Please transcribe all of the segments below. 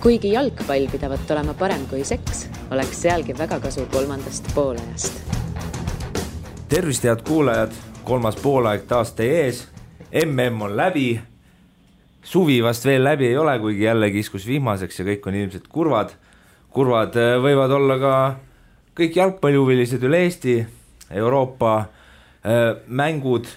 Kuigi jalgpall pidavat olema parem kui seks, oleks sealgi väga kasu kolmandast poolajast. Tervist, head kuulajad, kolmas poolaeg taas teie ees. MM on läbi, suvi vast veel läbi ei ole, kuigi jälle kiskus vihmaseks ja kõik on ilmselt kurvad. Kurvad võivad olla ka kõik jalgpallihuvilised üle Eesti, Euroopa mängud.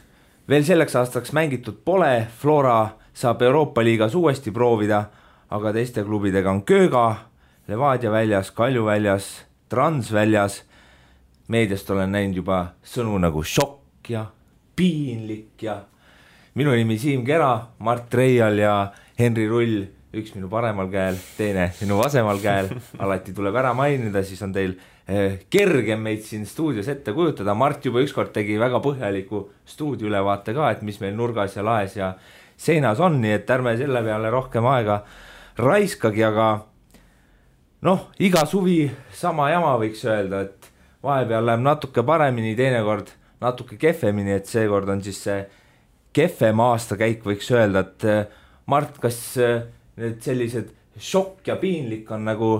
Veel selleks aastaks mängitud pole, Flora saab Euroopa liigas uuesti proovida, aga teiste klubidega on Kööga, Levadia väljas, Kalju väljas, Trans väljas. Meediast olen näinud juba sõnu nagu šokk ja piinlik ja minu nimi Siim Kera, Mart Reial ja Henri Rull, üks minu paremal käel, teine minu vasemal käel. Alati tuleb ära mainida, siis on teil kergem meid siin stuudios ette kujutada. Mart juba ükskord tegi väga põhjaliku stuudioülevaate ka, et mis meil nurgas ja laes ja seinas on, nii et ärme selle peale rohkem aega raiskagi, aga iga suvi sama jama võiks öelda, et vahepeal läheb natuke paremini, teinekord natuke kehvemini, et seekord on siis see kehvem aastakäik, võiks öelda, et Mart, kas need sellised šokk ja piinlik on nagu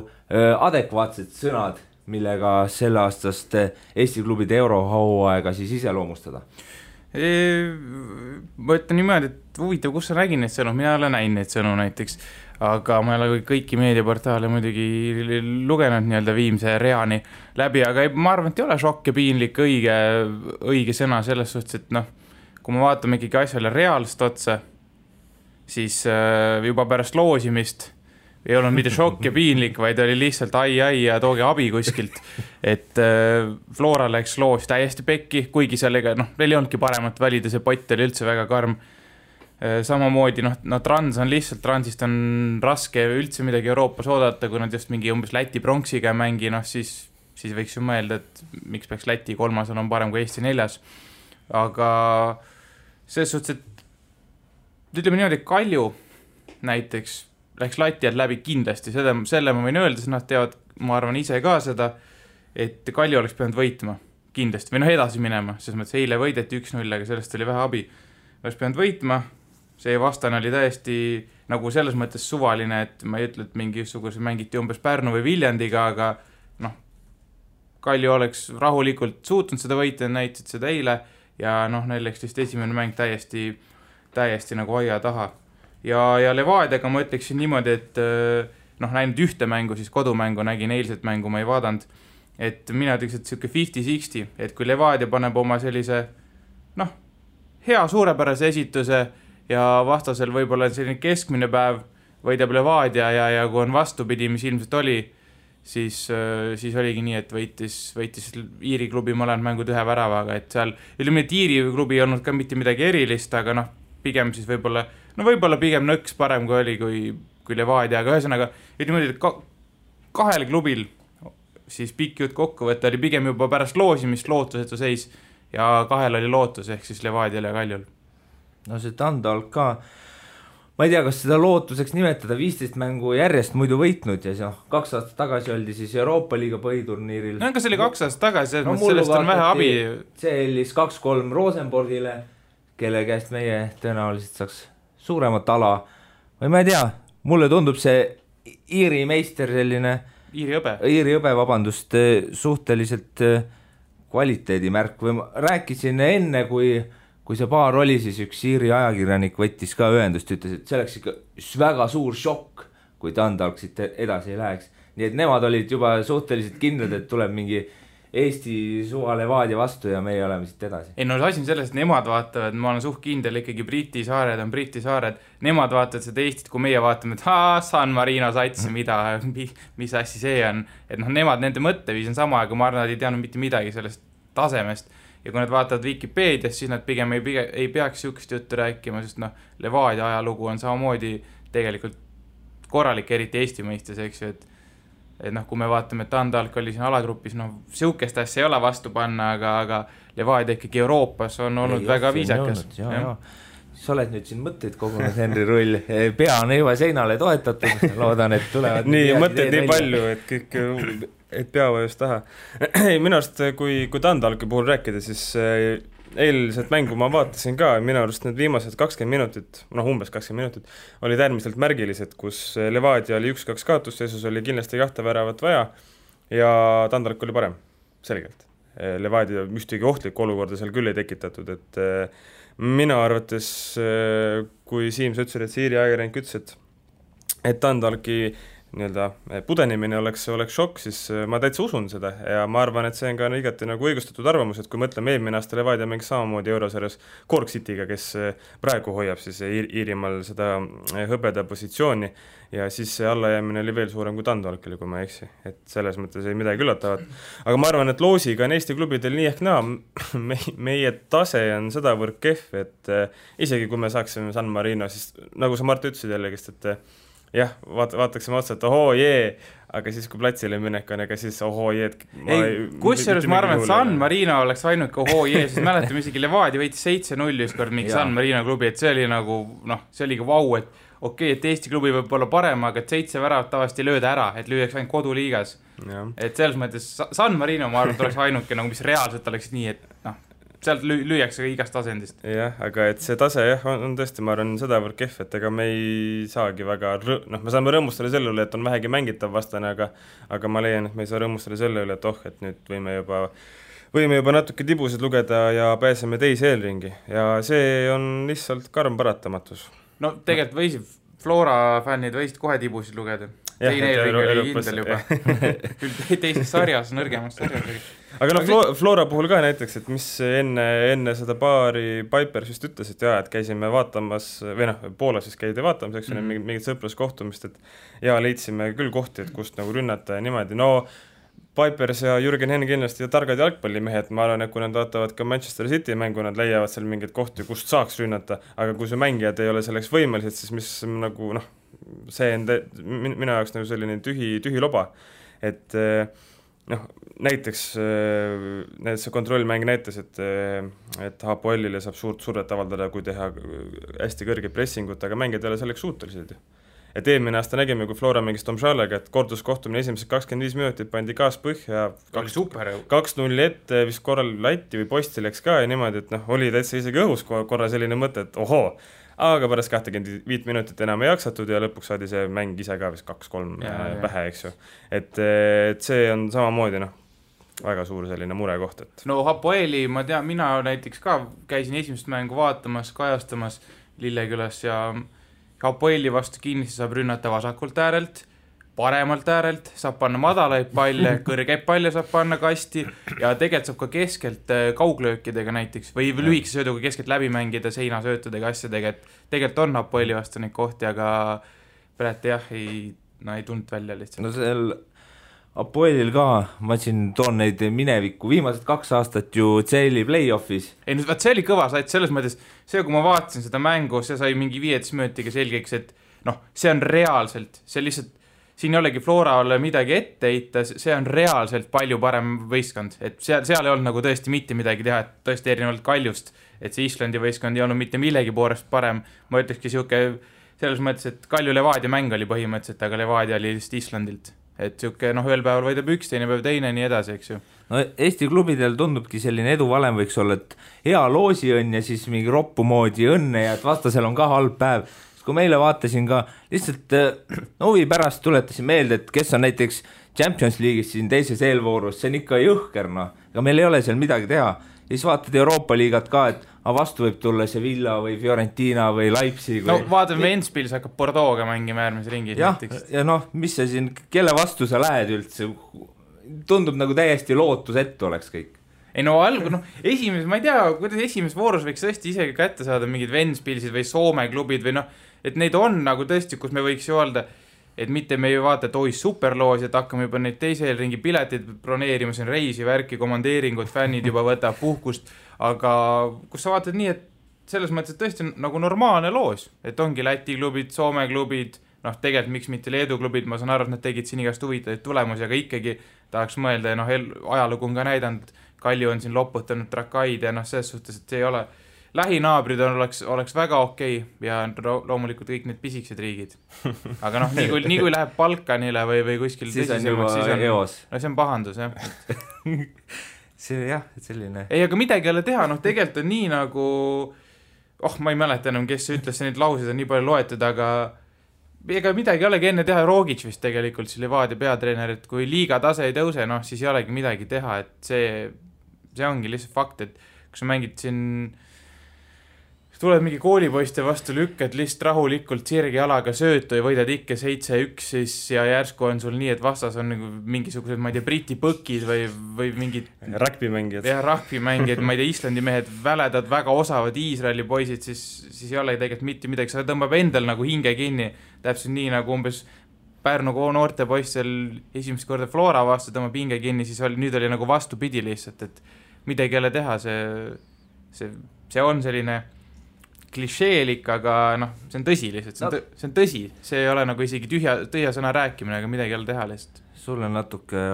adekvaatsed sõnad, millega selle aastast Eesti klubide eurohooaega siis iseloomustada? Ma ütlen niimoodi, et huvitav, kus sa nägin neid sõnu, mina olen näinud neid sõnu näiteks, aga ma ei ole kõiki meediaportaale muidugi lugenud nii-öelda viimse reani läbi, aga ma arvan, et ei ole šokk ja piinlik õige sõna selles suhtes, et kui me vaatame ikkagi asjale reaalselt otsa, siis juba pärast loosimist ei olnud mitte šokk ja piinlik, vaid oli lihtsalt ai ja tooge abi kuskilt, et Flora läks loos täiesti pekki, kuigi sellega, neil ei olnudki paremat valida, see pott oli üldse väga karm. Samamoodi, Trans on lihtsalt, Transist on raske üldse midagi Euroopas oodata, kui nad just mingi umbes Läti pronksiga mängi, siis võiks ju mõelda, et miks peaks Läti kolmasel on parem kui Eesti 4. Aga selles suhtes, et ütleme niimoodi, Kalju näiteks läks lati alt läbi kindlasti, selle ma võin öelda, sest nad teavad, ma arvan ise ka seda, et Kalju oleks pidanud võitma kindlasti, või edasi minema, sest mõttes eile võideti 1-0, aga sellest oli vähe abi. Oleks pidanud võitma, see vastane oli täiesti nagu selles mõttes suvaline, et ma ei ütle, et mingisuguse mängiti umbes Pärnu või Viljandiga, aga Kalju oleks rahulikult suutnud seda võita, näitasid seda eile ja neil läks vist esimene mäng täiesti nagu aia taha. Ja Levadiaga ma ütleksin niimoodi, et näinud ühte mängu, siis kodumängu nägin, eilset mängu ma ei vaadanud, et mina ütleks, et siuke 50-60, et kui Levadia paneb oma sellise hea suurepärase esituse ja vastasel võib-olla selline keskmine päev võidab Levadia ja kui on vastupidi, mis ilmselt oli, siis oligi nii, et võitis Iiri klubi mõlemad mängud ühe väravaga, et seal ütleme, et Iiri klubi ei olnud ka mitte midagi erilist, aga pigem siis võib-olla pigem nõks parem kui oli kui Levadia, aga ühesõnaga ütleme, et kahel klubil siis pikk jutt kokkuvõte oli pigem juba pärast loosimist lootusetu seis ja kahel oli lootus ehk siis Levadial ja Kaljul. See Tandal ka, ma ei tea, kas seda lootuseks nimetada, 15 mängu järjest muidu võitnud ja 2 aastat tagasi oldi siis Euroopa liiga põhiturniiril. Kas oli 2 aastat tagasi, sellest on vähe abi. See oli 2-3 Rosenborgile, kelle käest meie tõenäoliselt saaks suuremat ala. Või ma ei tea, mulle tundub see Iiri meister selline Iiri õbe, vabandust, suhteliselt kvaliteedimärk või ma rääkisin enne, kui see paar oli, siis üks Iiri ajakirjanik võttis ka ühendust, ütles, et see oleks ikka väga suur šokk, kui Tandalk siit edasi ei läheks. Nii et nemad olid juba suhteliselt kindlad, et tuleb mingi Eesti suva Levadia vastu ja meie oleme siit edasi. Asi on selles, et nemad vaatavad, ma olen suht kindel, ikkagi Briti saared on Briti saared, nemad vaatavad seda Eestit, kui meie vaatame, et San Marino sats, mis assi see on, et nemad, nende mõtteviis on sama, aga ma arvan, nad ei teadnud mitte midagi sellest tasemest ja kui nad vaatavad Wikipedias, siis nad pigem ei peaks siukest juttu rääkima, sest Levadia ajalugu on samamoodi tegelikult korralik, eriti Eesti mõistes, eks ju, et kui me vaatame, et Tandalk oli siin alagrupis, siukest asja ei ole vastu panna, aga Levadia ikkagi Euroopas on olnud väga viisakas. Sa oled nüüd siin mõtteid kogunud, Henri Rull, pea on juba seinale toetatud, loodan, et tulevad nii mõtteid nii palju, et kõik et pea vajus taha. Minu arust, kui Tandalki puhul rääkida, siis eilset mängu ma vaatasin ka, minu arust need viimased 20 minutit, umbes 20 minutit, olid äärmiselt märgilised, kus Levadia oli 1-2 kaotusseisus, oli kindlasti 2 väravat vaja ja Tandalk oli parem, selgelt. Levadia ühtegi ohtlikku olukorda seal küll ei tekitatud, et minu arvates, kui Siim, sa ütlesid, et Siiri ajakirjanik ütles, et Tandalki pudenemine oleks šokk, siis ma täitsa usun seda ja ma arvan, et see on ka igati nagu õigustatud arvamus, et kui mõtleme eelmine aasta Levadia mängis samamoodi Eurosarjas Cork Cityga, kes praegu hoiab siis Iirimaal seda hõbeda positsiooni ja siis see allajäämine oli veel suurem kui Tandalkile, kui ma ei eksi, et selles mõttes ei midagi üllatavat. Aga ma arvan, et loosiga on Eesti klubidel nii ehk naa, meie tase on sedavõrd kehv, et isegi kui me saaksime San Marino, siis nagu sa Mart ütlesid jällegi, et jah, vaataksime otsa, et ohoo jee, aga siis kui platsile minek on, ega siis ohoo jee. Kusjuures ma arvan, et San Marino oleks ainult ohoo jee, siis mäletame isegi Levadia võitis 7-0 ükskord mingi San Marino klubi, et see oli nagu, see oli ka vau, et okei, et Eesti klubi võib olla parem, aga et 7 väravat tavaliselt ei lööda ära, et lüüaks ainult koduliigas. Et selles mõttes San Marino, ma arvan, et oleks ainuke, nagu mis reaalselt oleks nii, et sealt lüüakse igast tasendist. Jah, aga et see tase on tõesti, ma arvan, sedavõrd kehv, et ega me ei saagi väga, me saame rõõmustada selle üle, et on vähegi mängitav vastane, aga ma leian, et me ei saa rõõmustada selle üle, et et nüüd võime juba natuke tibusid lugeda ja pääseme teise eelringi ja see on lihtsalt karm paratamatus. No tegelikult võisid, Flora fännid võisid kohe tibusid lugeda. Teine eelring oli kindel juba. Küll teises sarjas, nõrgemas sarjas. Aga Flora puhul ka näiteks, et mis enne seda paari Pipers just ütles, et käisime vaatamas, või Poolas siis käidi vaatamas, eks mingit sõpruskohtumist, et leidsime küll kohti, et kust nagu rünnata ja niimoodi. Pipers ja Jürgen Henn kindlasti ja targad jalgpallimehed, ma arvan, et kui nad vaatavad ka Manchester City mängu, nad leiavad seal mingeid kohti, kust saaks rünnata, aga kui see mängijad ei ole selleks võimelised, siis mis nagu, see on minu jaoks nagu selline tühi loba, et näiteks see kontrollmäng näitas, et Hapoelile saab suurt survet avaldada, kui teha hästi kõrge pressingut, aga mängijad ei ole selleks suutelised. Et eelmine aasta nägime, kui Flora mängis Tom Šalega, et korduskohtumine esimesed 25 minutit pandi gaas põhja, 2-0 ette, vist korral Latti või posti läks ka ja niimoodi, et oli täitsa isegi õhus korra selline mõte, et ohoo, aga pärast 25 minutit enam ei jaksatud ja lõpuks saadi see mäng ise ka vist 2-3 pähe, eks ju. Et see on samamoodi, väga suur selline murekoht, et Hapoeli, ma tean, mina näiteks ka käisin esimest mängu vaatamas, kajastamas Lillekülas ja Hapoeli vastu kindlasti saab rünnata vasakult äärelt, paremalt äärelt, saab panna madalaid palle, kõrgeid palle saab panna kasti ja tegelikult saab ka keskelt kauglöökidega näiteks või lühikese sööduga keskelt läbi mängida seinasöötudega asjadega, et tegelikult on Hapoeli vastu neid kohti, aga praegu ei tulnud välja lihtsalt. No seal Apoelil ka, ma siin toon neid minevikku, viimased 2 aastat ju CL-i play-offis. Ei, nüüd see oli kõva sait, selles mõttes, see kui ma vaatasin seda mängu, see sai mingi 15 minutiga selgeks, et see on reaalselt, see lihtsalt, siin ei olegi Florale midagi ette heita, see on reaalselt palju parem võistkond, et seal ei olnud nagu tõesti mitte midagi teha, et tõesti erinevalt Kaljust, et see Islandi võistkond ei olnud mitte millegi poolest parem, ma ütlekski siuke, selles mõttes, et Kalju Levadia mäng oli põhimõtteliselt, aga Levadia oli lihtsalt Islandilt. Et siuke, ühel päeval võidab üks, teine päev teine, nii edasi, eks ju. No Eesti klubidel tundubki selline eduvalem võiks olla, et hea loosiõnn ja siis mingi roppu moodi õnne ja et vastasel on ka halb päev. Kui meile vaatasin ka, lihtsalt huvi pärast tuletasin meelde, et kes on näiteks Champions League'is siin teises eelvoorus, see on ikka jõhker, aga meil ei ole seal midagi teha. Ja siis vaatad Euroopa liigat ka, et vastu võib tulla see Villa või Fiorentina või Leipzig. Vaatame Ventspils hakkab Bordeaux'ga mängima järgmise ringis. Ja mis sa siin, kelle vastu sa lähed üldse? Tundub nagu täiesti lootusettu oleks kõik. Ei esimeses, ma ei tea, kuidas esimeses voorus võiks tõesti isegi kätte saada mingid Ventspilsid või Soome klubid või et neid on nagu tõesti, kus me võiks ju öelda, et mitte me ei vaata, et superloos, et hakkame juba neid teise ringi piletid broneerima, siin reisi, värki, komandeeringud, fännid juba võtab puhkust, aga kus sa vaatad nii, et selles mõttes, et tõesti nagu normaalne loos, et ongi Läti klubid, Soome klubid, tegelikult miks mitte Leedu klubid, ma saan aru, et nad tegid siin igast huvitaid tulemusi, aga ikkagi tahaks mõelda ja ajalugu on ka näidanud, Kalju on siin loputanud Trakaid ja selles suhtes, et see ei ole lähinaabrid oleks väga okei ja loomulikult kõik need pisiksed riigid. Aga nii kui läheb Balkanile või kuskil siis on juba eos. See on pahandus, jah. see jah, selline. Ei, aga midagi ei ole teha, noh tegelikult on nii nagu, ma ei mäleta enam, kes ütles, neid lauseid on nii palju loetud, aga ega midagi ei olegi enne teha, Rogic vist tegelikult, see Levadia peatreener, et kui liiga tase ei tõuse, noh siis ei olegi midagi teha, et see ongi lihtsalt fakt, et kui sa mängid siin, tuled mingi koolipoiste vastu, lükkad lihtsalt rahulikult sirgi jalaga söötu ja võidad ikka 7-1 siis ja järsku on sul nii, et vastas on nagu mingisugused, ma ei tea, Briti põkid või mingid rugbymängijad. Ja rugbymängijad, ma ei tea, Islandi mehed väledad, väga osavad Iisraeli poisid, siis ei ole tegelikult mitte midagi, sa tõmbab endal nagu hinge kinni, täpselt nii nagu umbes Pärnu noorte poiss seal esimest korda Flora vastu tõmbab hinge kinni, siis nüüd oli nagu vastupidi lihtsalt, et midagi ei ole teha, see on selline klišeelik, aga noh, see on tõsi lihtsalt, see on tõsi, see ei ole nagu isegi tühja sõna rääkimine, aga midagi ei ole teha lihtsalt. Sul on natuke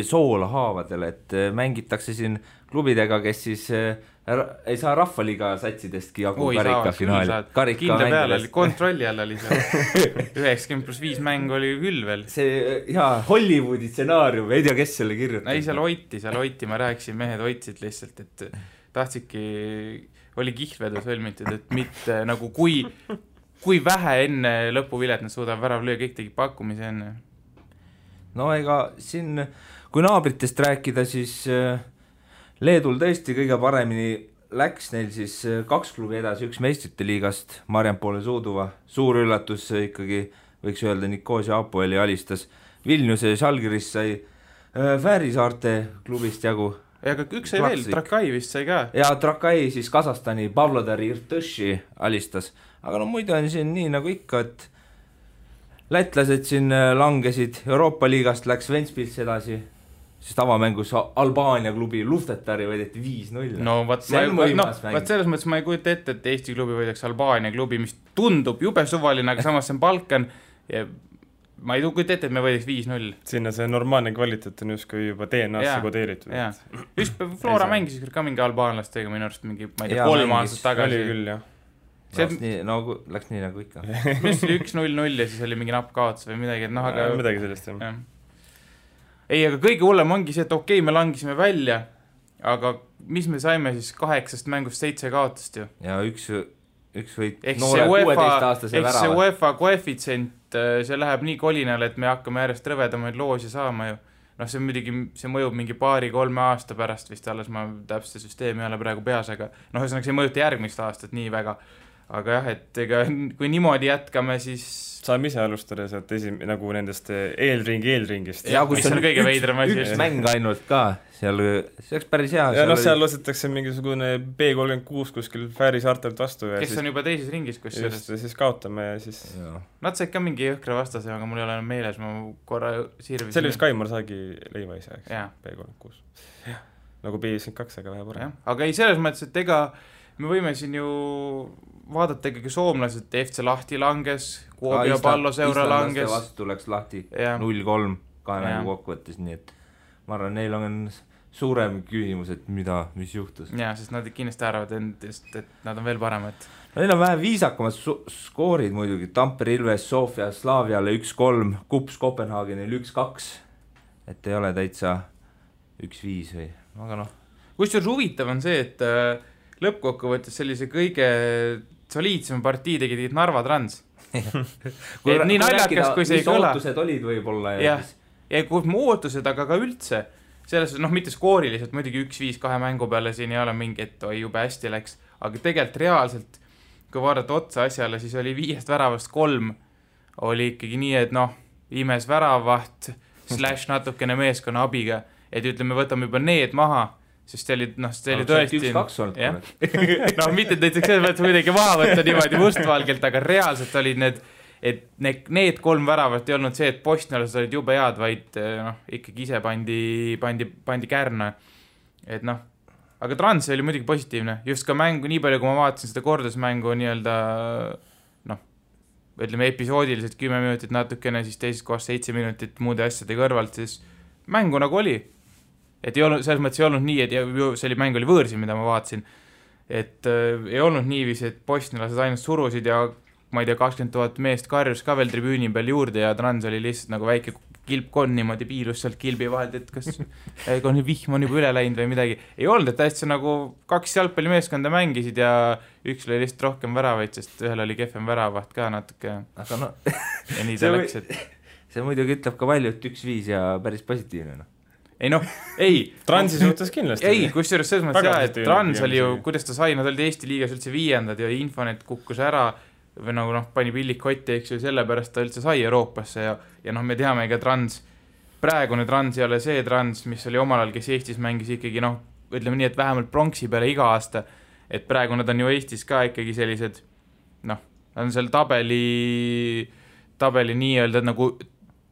soola haavadel, et mängitakse siin klubidega, kes siis ei saa rahvaliiga satsidestki jagu karika finaali. Kindla peale oli, kontrolli all oli see 90+5 mäng oli küll veel. See Hollywoodi stsenaarium, ei tea, kes selle kirjutab. Ei, seal hoiti, ma rääkisin, mehed hoitsid lihtsalt, et tahtsidki, oli kihlvedu sõlmitud, et mitte nagu kui vähe enne lõpuvilet nad suudavad värav lüüa, kõik tegid pakkumise enne. No ega siin, kui naabritest rääkida, siis Leedul tõesti kõige paremini läks neil siis 2 klubi edasi, 1 meistrite liigast, Mariampole Suuduva, suur üllatus ikkagi, võiks öelda, Nikosia Apoeli alistas, Vilniuse Žalgiris sai Fäärisaarte klubist jagu. Ja aga üks sai veel, Trakai vist sai ka. Ja Trakai siis Kasahstani Pavlodari Irtõši alistas, aga no muidu on siin nii nagu ikka, et lätlased siin langesid, Euroopa liigast läks Ventspils edasi, sest avamängus Albaania klubi Luftetari võideti 5-0. No vaat selles mõttes ma ei kujuta ette, et Eesti klubi võidaks Albaania klubi, mis tundub jube suvaline, aga samas see on Balkan ja ma ei kujuta ette, et me võidaks 5-0. Sinna see normaalne kvaliteet on justkui juba DNA-sse kodeeritud. Just Flora mängis ka mingi albaanlastega minu arust mingi, ma ei tea, 3 aastat tagasi. Oli küll, jah. Läks nii nagu ikka. Mis oli 1-0 ja siis oli mingi napp kaotus või midagi, et noh, aga midagi sellest, jah. Ei, aga kõige hullem ongi see, et okei, me langisime välja, aga mis me saime siis 8 mängust 7 kaotust ju? Ja üks võit noore 16-aastase värava. See UEFA koefitsient, see läheb nii kolinale, et me hakkame järjest rõvedamaid loosi saama ju. Noh, see mõjub mingi 2-3 aasta pärast vist alles, ma täpselt süsteemi ei ole praegu peas, aga noh, see mõjuta järgmist aastat nii väga. Aga jah, et ega kui niimoodi jätkame, siis saame ise alustada sealt nagu nendest eelringist. Ja mis on kõige veidram asi. Üks mäng ainult ka, see oleks päris hea. Ja seal losetakse mingisugune B36 kuskil Fäärisaartelt vastu. Kes on juba teises ringis, kus just, siis kaotame ja siis... Nad said ka mingi jõhkra vastase, aga mul ei ole meeles, ma korra sirvisin. See oli vist Kaimar Saagi leiva ise, B36. Nagu B52, aga vähe parem. Aga ei, selles mõttes, et ega me võime siin ju vaadata ikkagi soomlased, FC Lahti langes, Kuopio Palloseura langes. Islandlaste vastu läks Lahti 0-3 2 mängu kokkuvõttes, nii et ma arvan, neil on suurem küsimus, et mis juhtus. Jaa, sest nad kindlasti arvavad endast, et nad on veel paremad. Neil on vähe viisakamad skoorid muidugi, Tampere Ilves, Sofia, Slaviale 1-3, Kups Kopenhaagenil 1-2, et ei ole täitsa 1-5 või, aga noh. Kusjuures huvitav on see, et lõppkokkuvõttes sellise kõige soliidsema partii tegid Narva Trans. Nii naljakas, kui see ei kõla. Mis ootused olid võib-olla? Ja kui ootused, aga ka üldse. Selles, mitte skooriliselt, muidugi 1-5 2 mängu peale siin ei ole mingi, et jube hästi läks. Aga tegelikult reaalselt, kui vaadata otsa asjale, siis oli 5 väravast 3. Oli ikkagi nii, et imes väravaht / natukene meeskonna abiga. Et ütleme, võtame juba need maha. Sest see oli tõesti... 1-2 olnud. Mitte näiteks selles mõttes midagi maha võtta niimoodi mustvalgelt, aga reaalselt olid need 3 väravat ei olnud see, et postnelased olid jube head, vaid ikkagi ise pandi kärna. Et aga Trans oli muidugi positiivne. Just ka mängu, nii palju kui ma vaatasin seda kordusmängu nii-öelda ütleme episoodiliselt 10 minutit natukene, siis teises kohas 7 minutit muude asjade kõrvalt, siis mängu nagu oli. Et ei olnud, selles mõttes ei olnud nii, et see mäng oli võõrsi, mida ma vaatasin. Et ei olnud niiviisi, et postnelased ainult surusid ja ma ei tea, 20 000 meest karjus ka veel tribüüni peal juurde ja Trans oli lihtsalt nagu väike kilpkonn niimoodi piilus sealt kilbi vahelt, et kas vihm on juba üle läinud või midagi. Ei olnud, et hästi nagu 2 jalgpallimeeskonda mängisid ja üks oli lihtsalt rohkem väravaid, sest ühel oli kehvem väravaht ka natuke. Aga no, ja nii ta läks, et... See muidugi ütleb ka palju, et 1-5 ja päris positiivne. No. Ei noh, ei. Transi suhtes kindlasti. Ei, kusjuures selles mõttes jah, et Trans oli ju, kuidas ta sai, nad olid Eesti liigas üldse 5. ja Infonet kukkus ära või nagu noh, pani pillik kotti, eks ju, sellepärast ta üldse sai Euroopasse ja noh, me teame ka Trans, praegune Trans ei ole see Trans, mis oli omal ajal, kes Eestis mängis ikkagi noh, ütleme nii, et vähemalt pronksi peale iga aasta, et praegu nad on ju Eestis ka ikkagi sellised noh, on seal tabeli nii-öelda nagu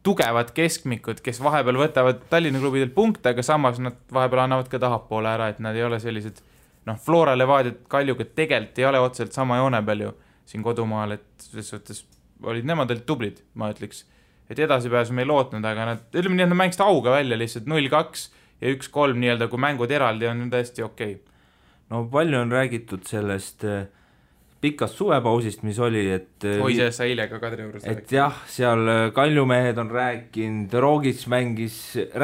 tugevad keskmikud, kes vahepeal võtavad Tallinna klubidelt punkte, aga samas nad vahepeal annavad ka tahapoole ära, et nad ei ole sellised noh, Flora Levadiat Kaljuga tegelikult ei ole otseselt sama joone peal ju siin kodumaal, et selles suhtes olid nemad tublid, ma ütleks, et edasipääsu me ei lootnud, aga nad, ütleme nii, et nad mängisid auga välja lihtsalt 0-2 ja 1-3 nii-öelda, kui mängud eraldi on täiesti okei. No palju on räägitud sellest pikast suvepausist, mis oli, et Hoises sa eile ka Kadri juures et jah, seal Kaljumehed on rääkinud, Rogic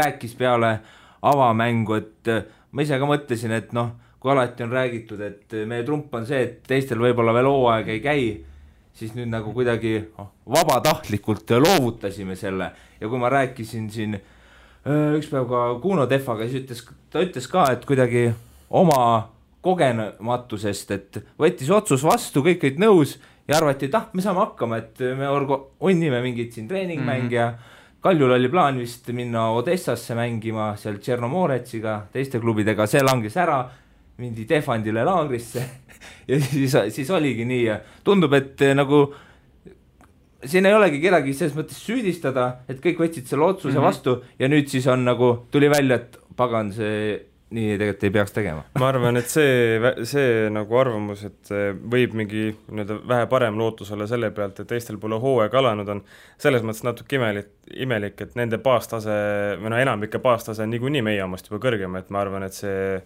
rääkis peale avamängu, et ma ise ka mõtlesin, et noh, kui alati on räägitud, et meie trump on see, et teistel võib-olla veel hooaeg ei käi, siis nüüd nagu kuidagi vabatahtlikult loovutasime selle ja kui ma rääkisin siin üks päev ka Kuno Tehvaga, siis ta ütles ka, et kuidagi oma kogenematusest, et võttis otsus vastu, kõik olid nõus ja arvati, et me saame hakkama, et me onnime mingid siin treeningmäng ja Kaljul oli plaan vist minna Odessasse mängima seal Tšernomoretsiga, teiste klubidega, see langes ära, mindi Tehvandile laagrisse ja siis oligi nii ja tundub, et nagu siin ei olegi kedagi selles mõttes süüdistada, et kõik võtsid selle otsuse vastu ja nüüd siis on nagu, tuli välja, et pagan, see nii tegelikult ei peaks tegema. Ma arvan, et see nagu arvamus, et võib mingi vähe parem lootus olla selle pealt, et teistel pole hooaeg alanud on, selles mõttes natuke imelik, et nende baastase, või enamike baastase on niikuinii meie omast juba kõrgem, et ma arvan, et see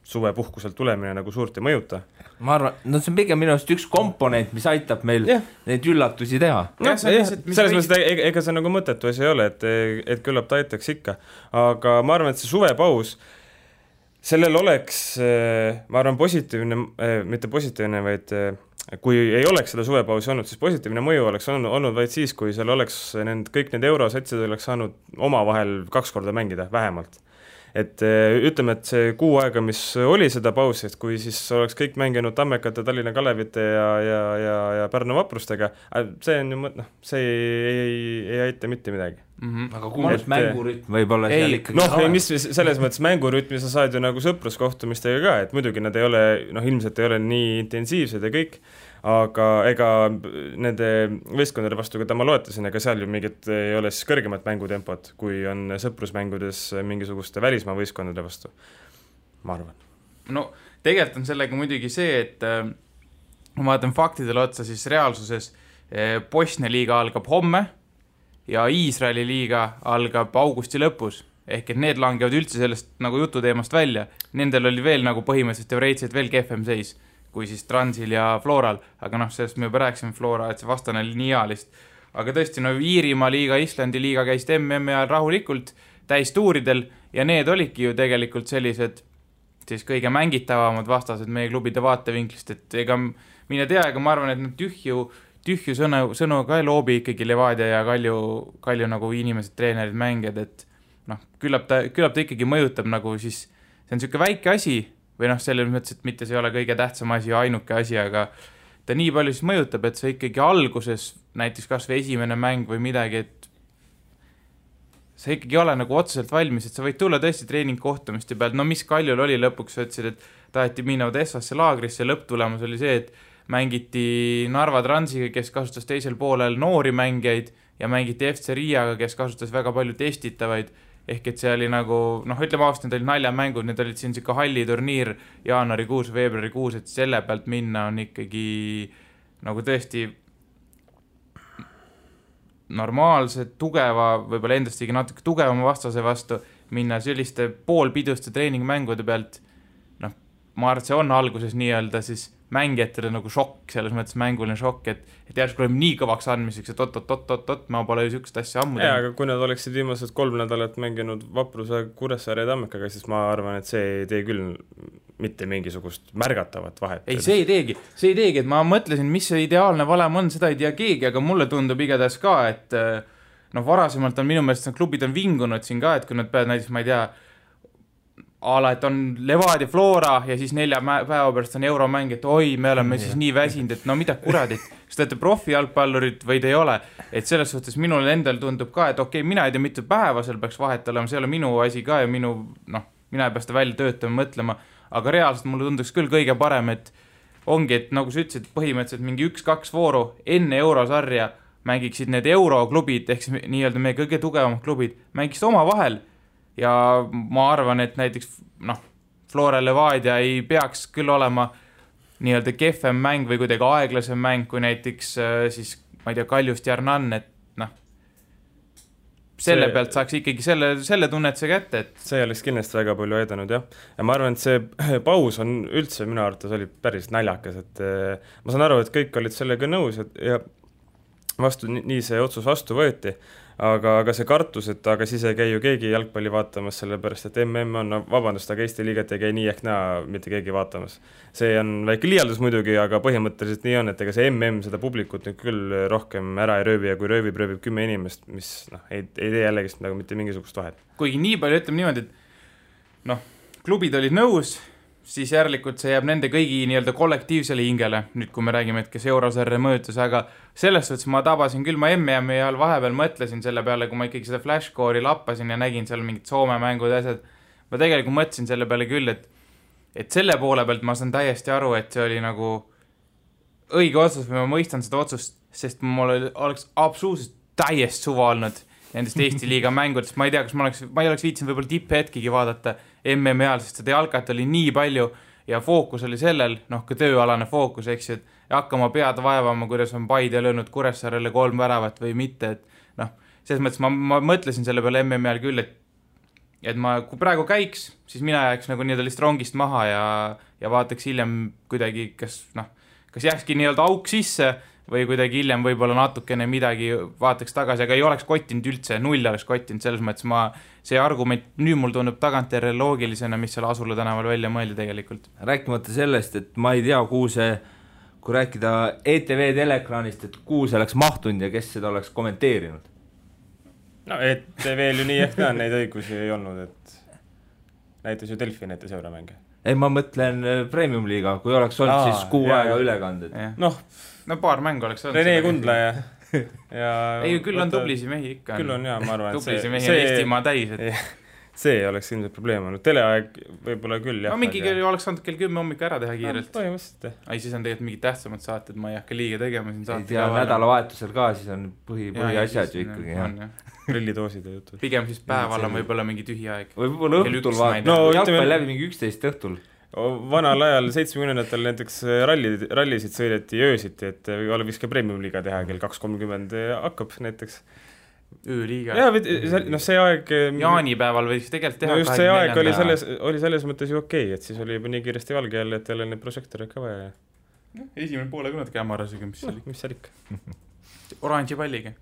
suvepuhkuselt tulemine nagu suurt ei mõjuta. Ma arvan, see on pigem minu arust üks komponent, mis aitab meil neid üllatusi teha. Selles mõttes, ega see nagu mõttetu asi ei ole, et küllap ta aitaks ikka. Aga ma arvan, et see suvepaus, sellel oleks, ma arvan, positiivne, mitte positiivne, vaid kui ei oleks seda suvepausi olnud, siis positiivne mõju oleks olnud vaid siis, kui seal oleks kõik need eurosatsid oleks saanud omavahel 2 korda mängida, vähemalt. Et ütleme, et see kuu aega, mis oli seda pausi, et kui siis oleks kõik mänginud Tammekate, Tallinna Kalevite ja Pärnu Vaprustega, see on ju, see ei aita mitte midagi. Aga kuulus mängurütm võib-olla seal ikkagi mis selles mõttes mängurütmi sa saad ju nagu sõpruskohtumistega ka, et muidugi nad ei ole, ilmselt ei ole nii intensiivsed ja kõik, aga ega nende võistkondade vastu, keda ma loetasin, ega seal ju mingit ei ole siis kõrgemat mängutempot, kui on sõprusmängudes mingisuguste välismaa võistkondade vastu, ma arvan. No tegelikult on sellega muidugi see, et ma vaatan faktidele otsa, siis reaalsuses Bosnia liiga algab homme ja Iisraeli liiga algab augusti lõpus, ehk et need langevad üldse sellest nagu jututeemast välja, nendel oli veel nagu põhimõtteliselt teoreetiliselt veel kehvem seis kui siis Transil ja Floral, aga sellest me juba rääkisime Flora, et see vastane oli nii hea lihtsalt. Aga tõesti, Iirimaa liiga, Islandi liiga käisid MM ja rahulikult täistuuridel ja need olidki ju tegelikult sellised siis kõige mängitavamad vastased meie klubide vaatevinklist, et ega mine tea, ega ma arvan, et tühju sõnu ka ei loobi ikkagi Levadia ja Kalju nagu inimesed, treenerid, mängijad, et küllap ta ikkagi mõjutab nagu siis, see on niisugune väike asi, või selles mõttes, et mitte see ei ole kõige tähtsam asi ja ainuke asi, aga ta nii palju siis mõjutab, et see ikkagi alguses, näiteks kas või esimene mäng või midagi, et sa ikkagi ole nagu otseselt valmis, et sa võid tulla tõesti treeningkohtumiste pealt, mis Kaljul oli lõpuks, sa ütlesid, et taheti minna Odessasse laagrisse, lõpptulemus oli see, et mängiti Narva Transiga, kes kasutas teisel poolel noori mängijaid ja mängiti FC Riiaga, kes kasutas väga palju testitavaid, ehk et see oli nagu, ütleme aastas, need olid naljamängud, need olid siin siuke halliturniir jaanuarikuus, veebruarikuus, et selle pealt minna on ikkagi nagu tõesti normaalse, tugeva, võib-olla endast ikkagi natuke tugevama vastase vastu minna selliste poolpiduste treeningmängude pealt, ma arvan, et see on alguses nii-öelda siis mängijatele nagu šokk, selles mõttes mänguline šokk, et järsku oleme nii kõvaks andmiseks, et oot, ma pole ju sükest asja ammu teinud. Aga kui nad oleksid viimased 3 nädalat mänginud Vapruse, Kuressaare ja Tammekaga, siis ma arvan, et see ei tee küll mitte mingisugust märgatavat vahet. Ei, see ei teegi, et ma mõtlesin, mis see ideaalne valem on, seda ei tea keegi, aga mulle tundub igatahes ka, et varasemalt on minu meelest klubid on vingunud siin ka, et kui nad peavad näiteks, ma ei tea, et on Levadia Flora ja siis 4 päeva pärast on euromäng, et oi, me oleme siis nii väsinud, et no mida kuradit, kas te olete profijalgpallurid või te ei ole, et selles suhtes minul endal tundub ka, et okei, mina ei tea, mitu päeva seal peaks vahet olema, see ei ole minu asi ka ja mina ei pea seda välja töötama, mõtlema, aga reaalselt mulle tunduks küll kõige parem, et ongi, et nagu sa ütlesid, põhimõtteliselt mingi 1-2 vooru enne eurosarja mängiksid need euroklubid, ehk siis nii-öelda meie kõige tugevamad klubid, mängiksid oma vahel. Ja ma arvan, et näiteks Flora Levadia ei peaks küll olema nii-öelda kehvem mäng või kuidagi aeglasem mäng kui näiteks siis, ma ei tea, Kaljust Jarnan, et selle pealt saaks ikkagi selle tunnetuse kätte, et see oleks kindlasti väga palju aidanud, jah. Ja ma arvan, et see paus on üldse minu arvates oli päris naljakas, et ma saan aru, et kõik olid sellega nõus ja nii see otsus vastu võeti. Aga see kartus, et aga siis ei käi ju keegi jalgpalli vaatamas, sellepärast, et MM on, vabandust, aga Eesti liigat ei käi nii ehk näa mitte keegi vaatamas. See on väike liialdus muidugi, aga põhimõtteliselt nii on, et ega see MM seda publikut nüüd küll rohkem ära ei rööbi ja kui rööbib 10 inimest, mis ei tee jällegist nagu mitte mingisugust vahet. Kuigi nii palju ütleme niimoodi, et klubid olid nõus, siis järelikult see jääb nende kõigi nii-öelda kollektiivsele hingele, nüüd kui me räägime, et kes eurosarja mõjutas, aga selles suhtes ma tabasin küll, ma MM-i ajal vahepeal mõtlesin selle peale, kui ma ikkagi seda flashcore'i lappasin ja nägin seal mingid Soome mängud ja asjad, ma tegelikult mõtlesin selle peale küll, et selle poole pealt ma saan täiesti aru, et see oli nagu õige otsus või ma mõistan seda otsust, sest mul oleks absoluutselt täiesti suva olnud nendest Eesti liiga mängudest, ma ei tea, kas ma ei oleks viitsinud võib-olla tipphetkigi vaadata MM-i ajal, sest seda jalkat oli nii palju ja fookus oli sellel, ka tööalane fookus, eks ju, et hakkama pead vaevama, kuidas on Paide löönud Kuressaarele 3 väravat või mitte, et selles mõttes ma mõtlesin selle peale MM-i ajal küll, et ma, kui praegu käiks, siis mina jääks nagu nii-öelda lihtsalt rongist maha ja vaataks hiljem kuidagi, kas jääkski nii-öelda auk sisse või kuidagi hiljem võib-olla natukene midagi vaataks tagasi, aga ei oleks kottinud üldse, 0 oleks kottinud, selles mõttes see argument nüüd mul tundub tagantjärele loogilisena, mis seal Asula tänaval välja mõeldi tegelikult. Rääkimata sellest, et ma ei tea, kui rääkida ETV teleekraanist, et kuhu see oleks mahtunud ja kes seda oleks kommenteerinud? ETV-l ju nii ehk ka neid õigusi ei olnud, et näitas ju Delfi näitas euromänge. Ei, ma mõtlen Premium liiga, kui oleks olnud siis kuu aega ülekanded. Paar mängu oleks olnud. Rene Kundla ja ei, küll on tublisi mehi ikka. Küll on, jaa, ma arvan, et tublisi mehi on Eestimaa täis. See oleks ilmselt probleem olnud. Teleaeg võib-olla küll, jah. Mingi oleks saanud kell 10 hommik ära teha kiirelt. Põhimõtteliselt. Ei, siis on tegelikult mingid tähtsamad saated, ma ei hakka liiga tegema siin saate. Ei tea, nädalavahetusel ka, siis on põhiasjad ju ikkagi, jah. Grillitooside jutud. Pigem siis päeval on võib-olla mingi tühi aeg. Võib-olla õhtul vaat. Jalgpall läbi mingi 11 õhtul. Vanal ajal 70-ndatel näiteks rallisid sõideti öösiti, et võiks ka Premium liiga teha, kell 2.30 hakkab näiteks. Ööliiga. See aeg jaanipäeval võiks tegelikult teha. No just see aeg oli selles mõttes ju okei, et siis oli juba nii kiiresti valge jälle, et jälle neid prožektoreid ka vaja. Esimene poole kõnad kämarasega, mis seal ikka. Oranži palliga.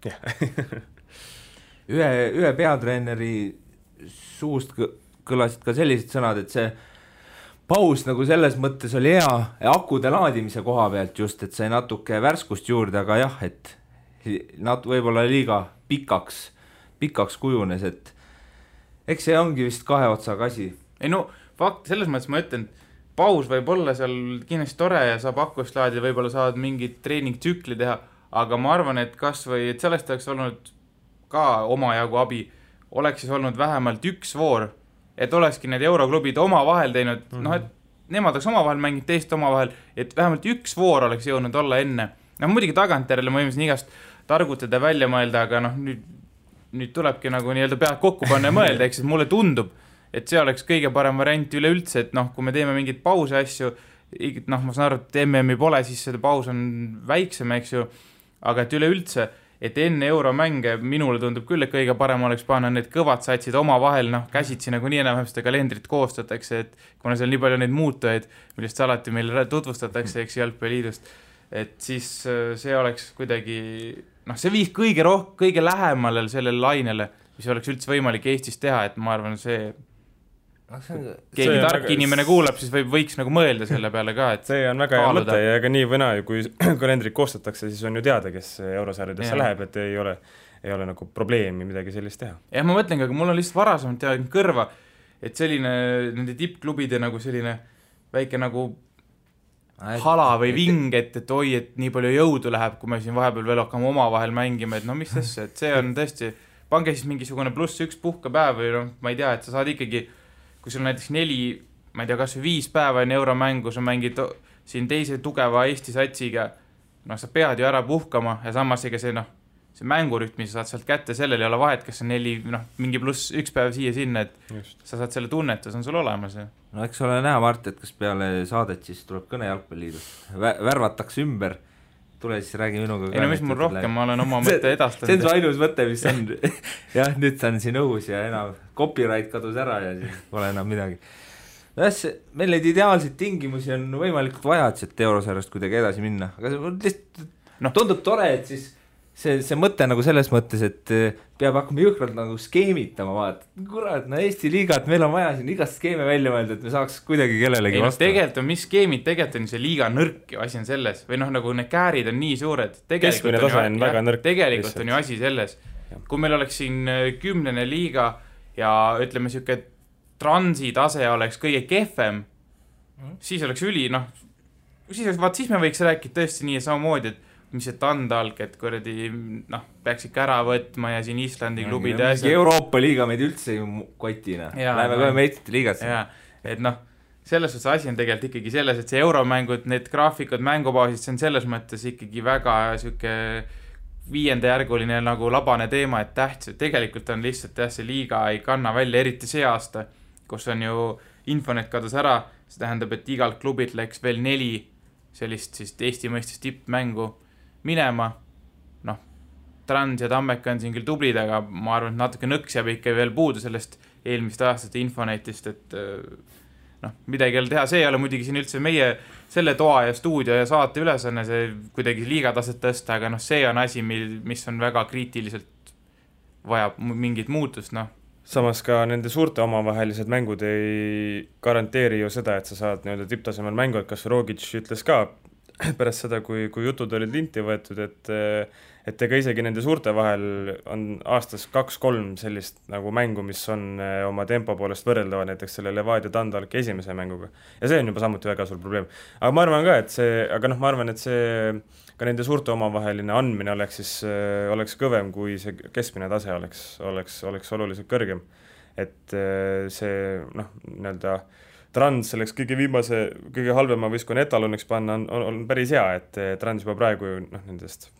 Ühe peatreeneri suust kõlasid ka sellised sõnad, et see paus nagu selles mõttes oli hea akude laadimise koha pealt just, et sai natuke värskust juurde, aga jah, et võib-olla liiga pikaks kujunes, et eks see ongi vist 2 otsaga asi. Ei fakt, selles mõttes ma ütlen, paus võib olla seal kindlasti tore ja saab akust laadida, võib-olla saad mingit treeningtsükli teha, aga ma arvan, et kasvõi, et sellest oleks olnud ka omajagu abi, oleks siis olnud vähemalt 1 voor, et olekski need euroklubid oma vahel teinud, et nemad oleks oma vahel mänginud teist oma vahel, et vähemalt 1 voor oleks jõudnud olla enne. Muidugi tagantjärele ma võimsin igast targutada välja mõelda, aga nüüd tulebki nagu nii-öelda pead kokku panna ja mõelda, eks, et mulle tundub, et see oleks kõige parem variant üleüldse, et kui me teeme mingid pause asju, ma saan aru, et MM-i pole, siis seda paus on väiksem, eks ju, aga et üleüldse et enne euromänge minule tundub küll, et kõige parem oleks panna need kõvad satsid omavahel, noh, käsitsi nagu nii enam seda kalendrit koostatakse, et kuna seal nii palju neid muutujaid, millest alati meile tutvustatakse, eks Jalgpalliliidust, et siis see oleks kuidagi, noh, see viis kõige lähemale sellele lainele, mis oleks üldse võimalik Eestis teha, et ma arvan, see keegi tark inimene kuulab, siis võiks nagu mõelda selle peale ka, et see on väga hea mõte ja ega nii või naa, kui kalendrit koostatakse, siis on ju teada, kes eurosarjadesse läheb, et ei ole nagu probleemi midagi sellist teha. Jah, ma mõtlengi, aga mul on lihtsalt varasemalt teadnud kõrva, et selline nende tippklubide nagu selline väike nagu hala või ving, et oi, et nii palju jõudu läheb, kui me siin vahepeal veel hakkame omavahel mängima, et no mis asja, et see on tõesti, pange siis mingisugune +1 puhkepäev või noh, ma ei tea, et sa saad ikkagi kui sul näiteks 4, ma ei tea, kas 5 päeva enne euromängu, sa mängid siin teise tugeva Eesti satsiga, noh, sa pead ju ära puhkama ja samas ega see, noh, see mängurütm, mis sa saad sealt kätte, sellel ei ole vahet, kas see 4, noh, mingi +1 päev siia-sinna, et just. Sa saad selle tunnetus, on sul olemas. Ja. No eks ole näha, Mart, et kas peale saadet siis tuleb kõne Jalgpalliliidust, värvatakse ümber, tule siis räägi minuga. Ei no mis mul rohkem, ma olen oma mõtte edastanud. See on su ainus mõte, mis on, jah, nüüd ta on siin õhus ja enam copyright kadus ära ja siis pole enam midagi. Meil neid ideaalseid tingimusi on võimalikult vaja, et eurosarjast kuidagi edasi minna, aga see lihtsalt tundub tore, et siis see mõte nagu selles mõttes, et peab hakkama jõhkralt nagu skeemitama, vaat, kurat, no Eesti liigat, meil on vaja siin igast skeeme välja mõelda, et me saaks kuidagi kellelegi vastu. Tegelikult on, mis skeemid, tegelikult on see liiga nõrk ju asi on selles, või noh, nagu need käärid on nii suured. Keskmine tase on väga nõrk. Tegelikult on ju asi selles, kui meil oleks siin 10. liiga ja ütleme siuke transi tase oleks kõige kehvem, siis oleks siis me võiks rääkida tõesti nii samamoodi, et mis see Tandalk, et kuradi, noh, peaks ikka ära võtma ja siin Islandi klubid ja Euroopa liiga meid üldse ju kotina. Läheme kohe meistrite liigasse. Et noh, selles suhtes asi on tegelikult ikkagi selles, et see euromängud, need graafikud, mängubaasid, see on selles mõttes ikkagi väga siuke 5. järguline nagu labane teema, et tähtis, et tegelikult on lihtsalt see liiga ei kanna välja, eriti see aasta, kus on ju Infonet kadus ära, see tähendab, et igalt klubit läks veel 4 sellist siis Eesti mõistes tippmängu minema, noh, Trans ja Tammeka on siin küll tublid, aga ma arvan, et natuke nõks jääb ikka veel puudu sellest eelmist aastast Infonetist, et noh, midagi ei ole teha, see ei ole muidugi siin üldse meie selle toa ja stuudio ja saate ülesanne, see kuidagi liigataset tõsta, aga noh, see on asi, mis on väga kriitiliselt vajab mingit muutust, noh. Samas ka nende suurte omavahelised mängud ei garanteeri ju seda, et sa saad nii-öelda tipptasemel mängu, et kas Rogic ütles ka pärast seda, kui jutud olid linti võetud, et ega isegi nende suurte vahel on aastas 2-3 sellist nagu mängu, mis on oma tempo poolest võrreldava näiteks selle Levadia Tandalki esimese mänguga. Ja see on juba samuti väga suur probleem. Aga ma arvan ka, et see ka nende suurte omavaheline andmine oleks kõvem, kui see keskmine tase oleks oluliselt kõrgem. Et see, noh, nii-öelda Trans selleks kõige halvema võistkonna etaloniks panna on päris hea, et Trans juba praegu noh, nendest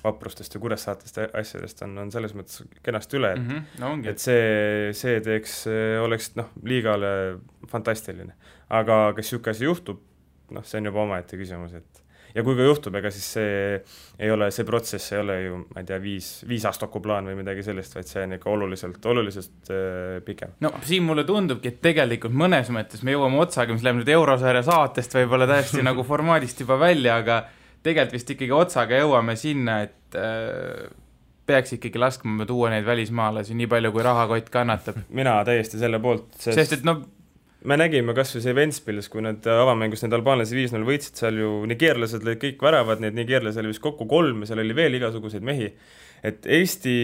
vaprustest ja Kuressaatest asjadest on selles mõttes kenasti üle, et see oleks noh, liigale fantastiline. Aga kas siuke asi juhtub, noh, see on juba omaette küsimus, et ja kui ka juhtub, ega siis see protsess ei ole ju, ma ei tea, 5 aastaku plaan või midagi sellist, vaid see on ikka oluliselt pikem. No siin mulle tundubki, et tegelikult mõnes mõttes me jõuame otsaga, mis läheb nüüd eurosarja saatest võib-olla täiesti nagu formaadist juba välja, aga tegelikult vist ikkagi otsaga jõuame sinna, et peaks ikkagi laskma tuua neid välismaalasi nii palju, kui rahakott kannatab. Mina täiesti selle poolt. Sest et no me nägime kas või see Ventspils, kui need avamängus need albaanlasi 5-0 võitsid, seal ju nigeerlased lõid kõik väravad, need nigeerlased oli vist kokku 3 ja seal oli veel igasuguseid mehi. Et Eesti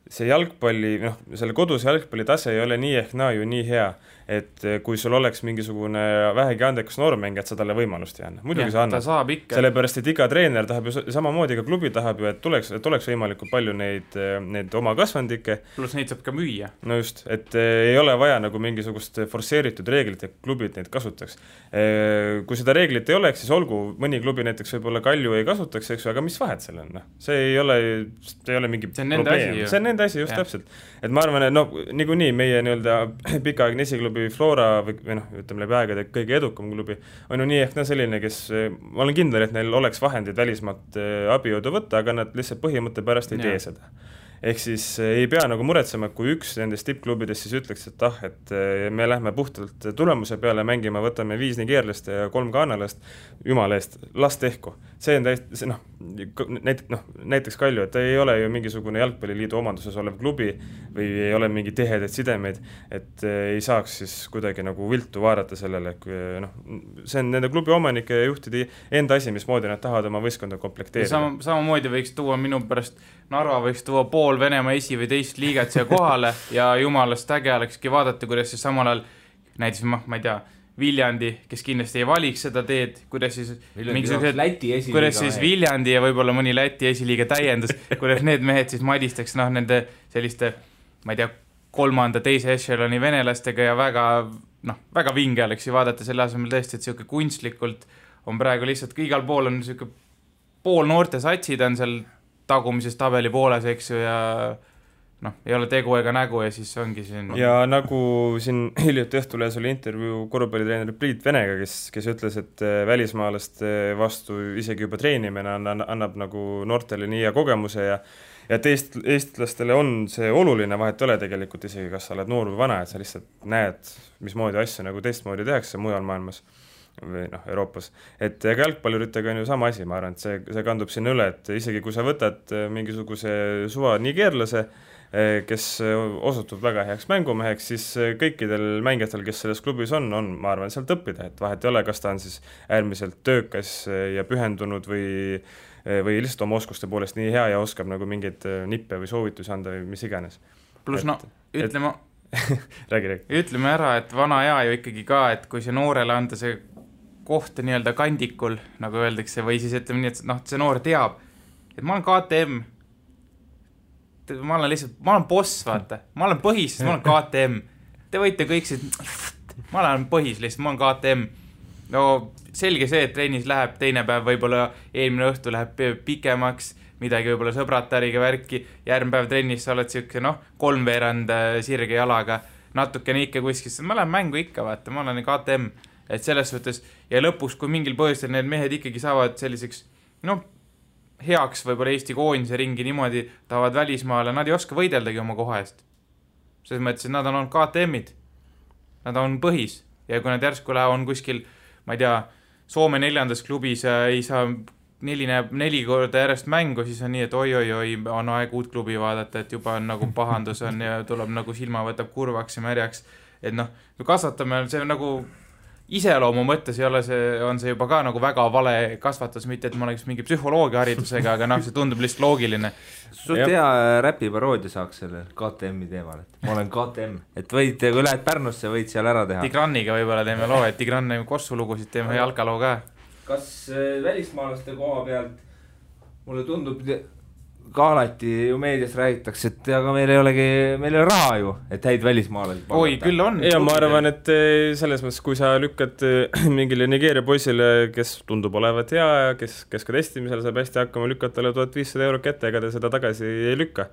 see jalgpalli, noh, selle kodus jalgpalli tase ei ole nii ehk naa ju nii hea, et kui sul oleks mingisugune vähegi andekas noormäng, et sa talle võimalust ei anna. Muidugi sa annad. Sellepärast, et iga treener tahab ju samamoodi, ka klubi tahab ju, et oleks võimalikult palju neid oma kasvandikke. Plus neid saab ka müüa. No just, et ei ole vaja nagu mingisugust forsseeritud reeglit, et klubid neid kasutaks. Kui seda reeglit ei oleks, siis olgu, mõni klubi näiteks võib-olla Kalju ei kasutaks, eks ju, aga mis vahet seal on? See ei ole mingi probleem. See on nende nende asi, just täpselt. Et ma arvan, et no niikuinii meie nii-öelda pikaaegne esiklubi Flora või ütleme läbi aegade kõige edukam klubi on ju nii ehk selline, kes, ma olen kindel, et neil oleks vahendid välismaalt abijõudu võtta, aga nad lihtsalt põhimõtte pärast ei tee seda. Ehk siis ei pea nagu muretsema, kui üks nendest tippklubidest siis ütleks, et me lähme puhtalt tulemuse peale mängima, võtame 5 nigeerlast ja 3 ghanalast, jumala eest, las tehku. See on täiesti, näiteks Kalju, et ei ole ju mingisugune jalgpalliliidu omanduses olev klubi või ei ole mingi tihedaid sidemeid, et ei saaks siis kuidagi nagu viltu vaadata sellele, see on nende klubi omanike ja juhtide enda asi, mismoodi nad tahavad oma võistkonda komplekteerida. Samamoodi võiks tuua minu pärast, Narva võiks tuua pool Venemaa esi- või teist liigat siia kohale ja jumalast äge olekski vaadata, kuidas siis samal ajal näiteks, ma ei tea, Viljandi, kes kindlasti ei valiks seda teed, kuidas siis Viljandi ja võib-olla mõni Läti esiliiga täiendus, kuidas need mehed siis madistaks nende selliste, ma ei tea, 3., 2. echeloni venelastega ja väga vinge oleks ju vaadata selle asemel tõesti, et siuke kunstlikult on praegu lihtsalt, igal pool on siuke pool noorte satsid on seal tagumises tabeli pooles, eks ju, ja ei ole tegu ega nägu ja siis ongi siin. Ja nagu siin hiljuti Õhtulehes oli intervjuu korvpallitreener Priit Venega, kes ütles, et välismaalaste vastu isegi juba treenimine annab nagu noortele nii hea kogemuse ja et eestlastele on see oluline, vahet ole tegelikult isegi, kas sa oled noor või vana, et sa lihtsalt näed, mismoodi asju nagu teistmoodi tehakse mujal maailmas või Euroopas. Et ega jalgpalluritega on ju sama asi, ma arvan, et see kandub sinna üle, et isegi kui sa võtad mingisuguse suva nigeerlase, kes osutub väga heaks mängumeheks, siis kõikidel mängijatel, kes selles klubis on, ma arvan, sealt õppida, et vahet ei ole, kas ta on siis äärmiselt töökas ja pühendunud või lihtsalt oma oskuste poolest nii hea ja oskab nagu mingeid nippe või soovitusi anda või mis iganes. Plus räägi. Ütleme ära, et vana hea ju ikkagi ka, et kui see noorele anda see koht nii-öelda kandikul, nagu öeldakse, või siis ütleme nii, et see noor teab, et ma olen KTM, ma olen boss, vaata, ma olen põhis, ma olen KTM, te võite kõik siis, ma olen põhis lihtsalt, ma olen KTM, no selge see, et trennis läheb teine päev, võib-olla eelmine õhtu läheb pikemaks, midagi võib-olla sõbratariga värki, järgmine päev trennis sa oled siuke, 3/4 sirge jalaga, natukene ikka kuskil, ma lähen mängu ikka, vaata, ma olen KTM, et selles suhtes, ja lõpuks, kui mingil põhjustel need mehed ikkagi saavad selliseks, heaks võib-olla Eesti koondise ringi niimoodi, tahavad välismaale, nad ei oska võideldagi oma koha eest. Selles mõttes, et nad on olnud KTM-id, nad on põhis, ja kui nad järsku on kuskil, ma ei tea, Soome 4. klubis ei saa 4 korda järjest mängu, siis on nii, et oi, on aeg uut klubi vaadata, et juba on nagu pahandus on ja tuleb nagu silma võtab kurvaks ja märjaks, et kui kasvatame, see on nagu iseloomu mõttes on see juba ka nagu väga vale kasvatus, mitte et ma oleks mingi psühholoogia haridusega, aga see tundub lihtsalt loogiline. Sult hea räpiparoodia saaks selle KTM-i teemal, et ma olen KTM, et võid, kui lähed Pärnusse, võid seal ära teha. Tigraniga võib-olla teeme loo, et Tigran kossulugusid teeme jalkaloo ka. Kas välismaalaste koha pealt mulle tundub ka alati ju meedias räägitakse, et aga meil ei ole raha ju, et häid välismaalasi palgata. Oi, küll on. Ja ma arvan, et selles mõttes, kui sa lükkad mingile Nigeeria poisile, kes tundub olevat hea ja kes ka testimisel saab hästi hakkama, lükkad talle 1500 € kätte, ega ta seda tagasi ei lükka.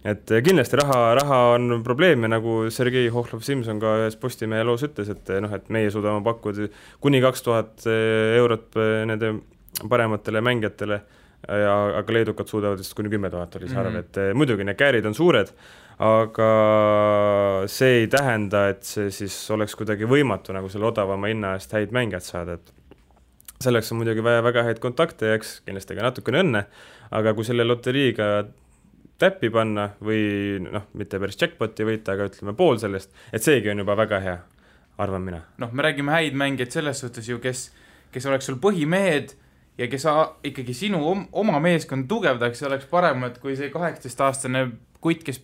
Et kindlasti raha on probleem ja nagu Sergei Hohlov-Simson ka ühes Postimehe loos ütles, et meie suudame pakkuda kuni 2000 € nende parematele mängijatele, aga leedukad suudavad vist kuni 10 000 oli see arv, et muidugi need käärid on suured, aga see ei tähenda, et see siis oleks kuidagi võimatu nagu selle odavama hinna eest häid mängijad saada, et selleks on muidugi vaja väga häid kontakte ja eks kindlasti ka natukene õnne, aga kui selle loteriiga täppi panna või mitte päris jackpoti võita, aga ütleme pool sellest, et seegi on juba väga hea, arvan mina. Me räägime häid mängijaid selles suhtes ju, kes oleks sul põhimehed ja kes ikkagi sinu oma meeskond tugevdaks, oleks parem, et kui see 18-aastane kutt, kes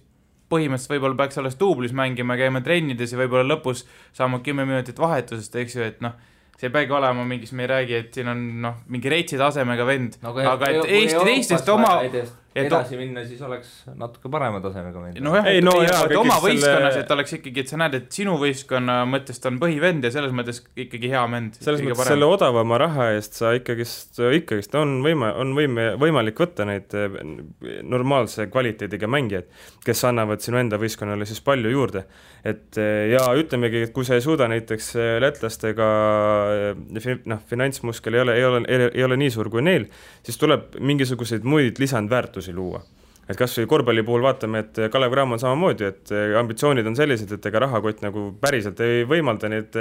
põhimõtteliselt võib-olla peaks alles duublis mängima, käima trennides ja võib-olla lõpus saama 10 minutit vahetusest, eks ju, et see ei peagi olema mingis, me ei räägi, et siin on mingi reitsi tasemega vend, aga et Eesti teistest edasi minna, siis oleks natuke parema tasemega mängida. No jah, oma võistkonnas, et oleks ikkagi, et sa näed, et sinu võistkonna mõttest on põhivend ja selles mõttes ikkagi hea mend. Selles mõttes selle odavama raha eest sa ikkagist on võimalik võtta neid normaalse kvaliteediga mängijaid, kes annavad sinu enda võistkonnale siis palju juurde. Ja ütlemegi, et kui sa ei suuda näiteks lätlastega finantsmuskel ei ole nii suur kui neil, siis tuleb mingisuguseid muid lisandväärtusi luua. Et kas või korvpalli puhul vaatame, et Kalev Cramo on samamoodi, et ambitsioonid on sellised, et ega rahakott nagu päriselt ei võimalda neid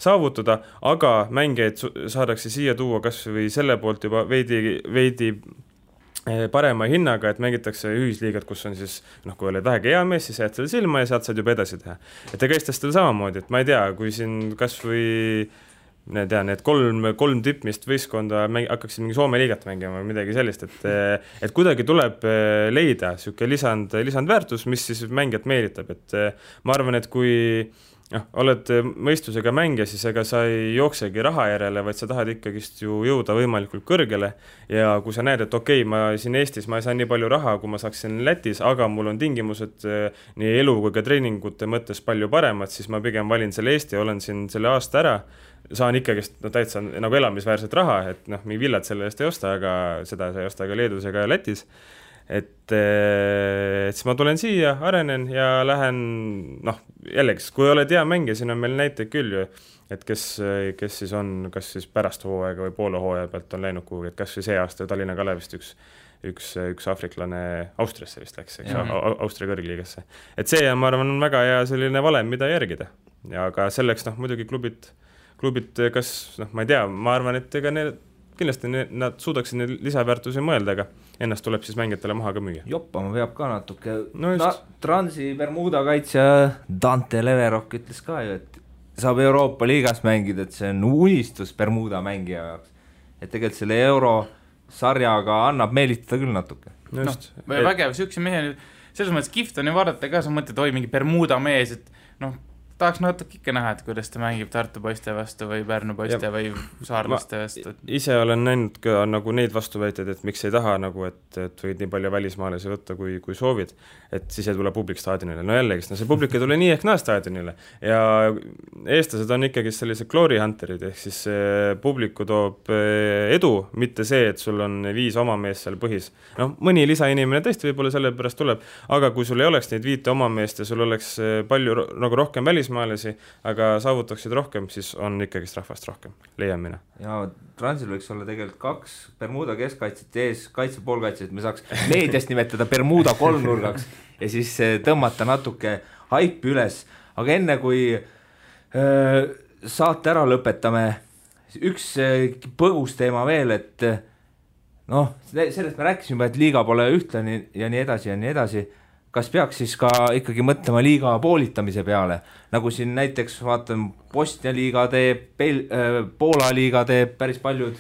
saavutada, aga mängijaid saadakse siia tuua kas või selle poolt juba veidi parema hinnaga, et mängitakse ühisliigat, kus on siis, kui oled vähegi hea mees, siis jääd selle silma ja saad juba edasi teha. Et ega eestlastel samamoodi, et ma ei tea, kui siin kas või need kolm tippmist võistkonda hakkaksid mingi Soome liigat mängima või midagi sellist, et kuidagi tuleb leida siuke lisandväärtus, mis siis mängijat meelitab, et ma arvan, et kui oled mõistusega mängija, siis ega sa ei jooksegi raha järele, vaid sa tahad ikkagist ju jõuda võimalikult kõrgele ja kui sa näed, et okei, ma siin Eestis ma ei saa nii palju raha, kui ma saaksin Lätis, aga mul on tingimused nii elu kui ka treeningute mõttes palju paremad, siis ma pigem valin selle Eesti, olen siin selle aasta ära, saan ikkagist täitsa nagu elamisväärset raha, et mingi villad selle eest ei osta, aga seda sa ei osta ka Leedus ega Lätis. Et siis ma tulen siia, arenen ja lähen, jällegi, kui oled hea mängija, siin on meil näiteid küll ju, et kes siis on, kas siis pärast hooaega või poole hooaja pealt on läinud kuhugi, et kas või see aasta Tallinna Kalevist üks aafriklane Austriasse vist läks, Austria kõrgliigasse. Et see, ma arvan, on väga hea selline valem, mida järgida. Ja ka selleks, muidugi klubid, kas, ma ei tea, ma arvan, et ega kindlasti nad suudaksid neid lisaväärtusi mõelda, aga ennast tuleb siis mängijatele maha ka müüa. Joppama peab ka natuke. Transi Bermuda kaitsja Dante Leverok ütles ka ju, et saab Euroopa liigas mängida, et see on unistus Bermuda mängija jaoks. Et tegelikult selle eurosarjaga annab meelitada küll natuke. Vägev, siukse mehe, selles mõttes kihvt on ju vaadata ka, sa mõtled, oi mingi Bermuda mees, et tahaks natuke ikka näha, et kuidas ta mängib Tartu poiste vastu või Pärnu poiste või saarlaste vastu. Ise olen näinud ka neid vastuväiteid, et miks ei taha, et võid nii palju välismaalasi võtta, kui soovid, et siis ei tule publik staadionile. Jällegi, see publik ei tule nii ehk naa staadionile. Ja eestlased on ikkagi sellised glory hunterid, ehk siis publiku toob edu, mitte see, et sul on 5 oma mees seal põhis. Mõni lisainimene tõesti võib-olla selle pärast tuleb, aga kui sul ei oleks neid 5 oma meest ja sul oleks palju rohkem välismaalasi, aga saavutaksid rohkem, siis on ikkagist rahvast rohkem, leian mina. Ja Transil võiks olla tegelikult 2 Bermuda keskkaitset ees, kaitsepoolkaitset, me saaks meediast nimetada Bermuda kolmnurgaks ja siis tõmmata natuke haipi üles. Aga enne kui saate ära lõpetame, üks põgus teema veel, et sellest me rääkisime, et liiga pole ühtlane ja nii edasi ja nii edasi. Kas peaks siis ka ikkagi mõtlema liiga poolitamise peale, nagu siin näiteks vaatan Bosnia liiga teeb, Poola liiga teeb, päris paljud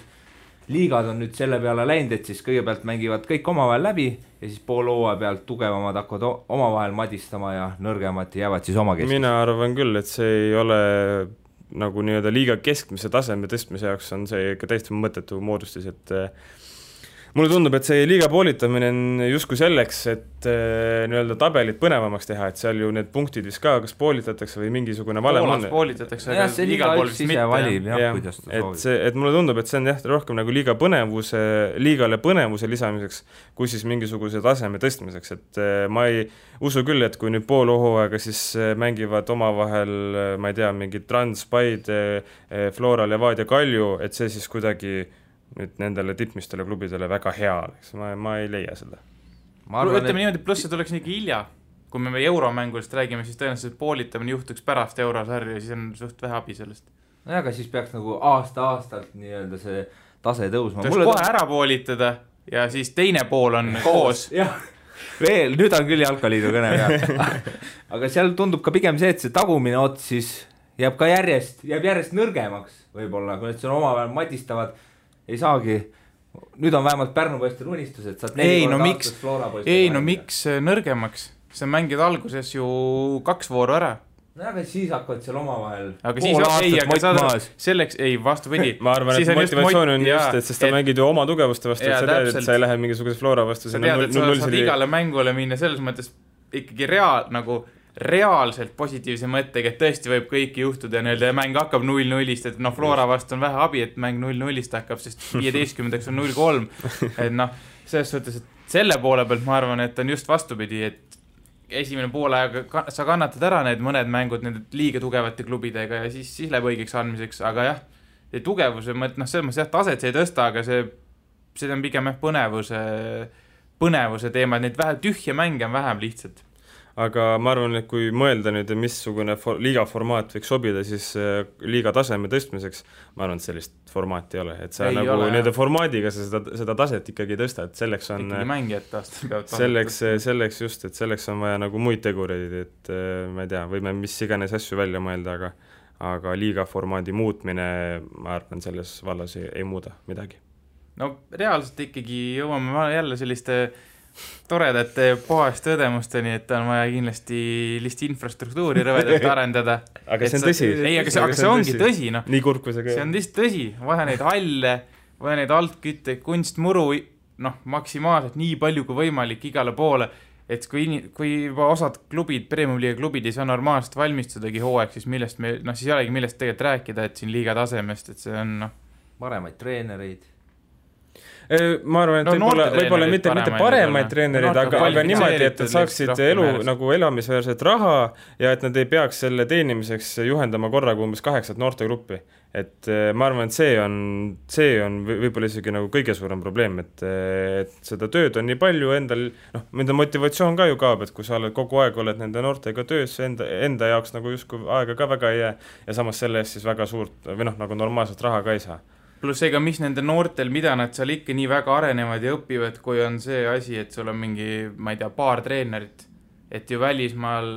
liigad on nüüd selle peale läinud, et siis kõigepealt mängivad kõik omavahel läbi ja siis pool hooaja pealt tugevamad hakkavad omavahel madistama ja nõrgemad jäävad siis oma keskis. Mina arvan küll, et see ei ole nagu nii-öelda liiga keskmise taseme tõstmise jaoks on see ikka täiesti mõttetu moodustis, et mulle tundub, et see liiga poolitamine on justkui selleks, et nii-öelda tabelit põnevamaks teha, et seal ju need punktid vist ka, kas poolitatakse või mingisugune valem on. Poolas poolitatakse, aga igal pool vist mitte. Valib, kuidas ta soovib. Et mulle tundub, et see on rohkem nagu liigale põnevuse lisamiseks, kui siis mingisuguse taseme tõstmiseks, et ma ei usu küll, et kui nüüd pool hooaega siis mängivad omavahel, ma ei tea, mingi Trans, Paid, Flora, Levadia, Kalju, et see siis kuidagi nüüd nendele tippmistele klubidele väga hea oleks, ma ei leia seda. Ütleme niimoodi, pluss see tuleks nii hilja, kui me euromängulist räägime, siis tõenäoliselt poolitamine juhtuks pärast eurosarja ja siis on suht vähe abi sellest. Aga siis peaks nagu aasta-aastalt nii-öelda see tase tõusma. Tuleks kohe ära poolitada ja siis teine pool on koos. Veel, nüüd on küll jalkaliidu kõne peal. Aga seal tundub ka pigem see, et see tagumine ots siis jääb järjest nõrgemaks võib-olla, kui need seal omavahel madistavad ei saagi, nüüd on vähemalt Pärnu poistel unistus, et saad 4 korda aastas Flora poistel. Miks nõrgemaks? See mängid alguses ju 2 vooru ära no aga siis hakkavad seal omavahel aga siis aga saad selleks, ei vastupidi ma arvan, et motivatsioon on just, et sest sa mängid ju oma tugevuste vastu, et sa tead, et sa ei lähe mingisuguse Flora vastu, sa tead, et sa saad igale mängule minna selles mõttes ikkagi reaalselt positiivse mõttega, et tõesti võib kõiki juhtuda ja mäng hakkab 0-0-ist, et Flora vastu on vähe abi, et mäng 0-0-ist hakkab, sest 15 on 0-3, et selles suhtes, et selle poole pealt ma arvan, et on just vastupidi, et esimene poolajaga sa kannatad ära need mõned mängud nende liiga tugevate klubidega ja siis läheb õigeks andmiseks, aga jah, tugevuse mõt, selles mõttes jah, taset see ei tõsta, aga see on pigem põnevuse teema, et neid vähe tühje mänge on vähem lihtsalt. Aga ma arvan, et kui mõelda nüüd, missugune liiga formaat võiks sobida, siis liiga taseme tõstmiseks, ma arvan, et sellist formaati ei ole. Et sa nende formaadiga seda taset ikkagi tõsta, et selleks on... Ikkagi mängijad taastel peavad selleks just, et selleks on vaja nagu muid tegureid, et ma ei tea, võime mis iganes asju välja mõelda, aga liiga formaadi muutmine, ma arvan, selles vallas ei muuda midagi. No reaalselt ikkagi jõuame jälle selliste... toredate puhaste õdemusteni, et on vaja kindlasti infrastruktuuri rõvedalt arendada. Aga see on tõsi. Ei, aga see ongi tõsi. Nii kurb kui see see on lihtsalt tõsi. Vaja neid halle, vaja neid altkütte, kunstmuru maksimaalselt nii palju kui võimalik igale poole, et kui juba osad klubid, Premium Liiga klubid ei saa normaalselt valmistudagi hooaeg, siis siis ei olegi millest tegelikult rääkida, et siin liiga tasemest, et see on paremaid treenereid. Ma arvan, et võib-olla mitte paremaid treenereid, aga niimoodi, et saaksid elu nagu elamisväärset raha ja et nad ei peaks selle teenimiseks juhendama korraga umbes 8 noortegruppi. Et ma arvan, et see on võib-olla isegi nagu kõige suurem probleem, et seda tööd on nii palju endal, nende motivatsioon ka ju kaob, et kui sa kogu aeg oled nende noortega töös, enda jaoks nagu justkui aega ka väga ei jää ja samas selle eest siis väga suurt või nagu normaalset raha ka ei saa. Pluss ega mis nende noortel, mida nad seal ikka nii väga arenevad ja õpivad, kui on see asi, et sul on mingi, ma ei tea, paar treenerit, et ju välismaal,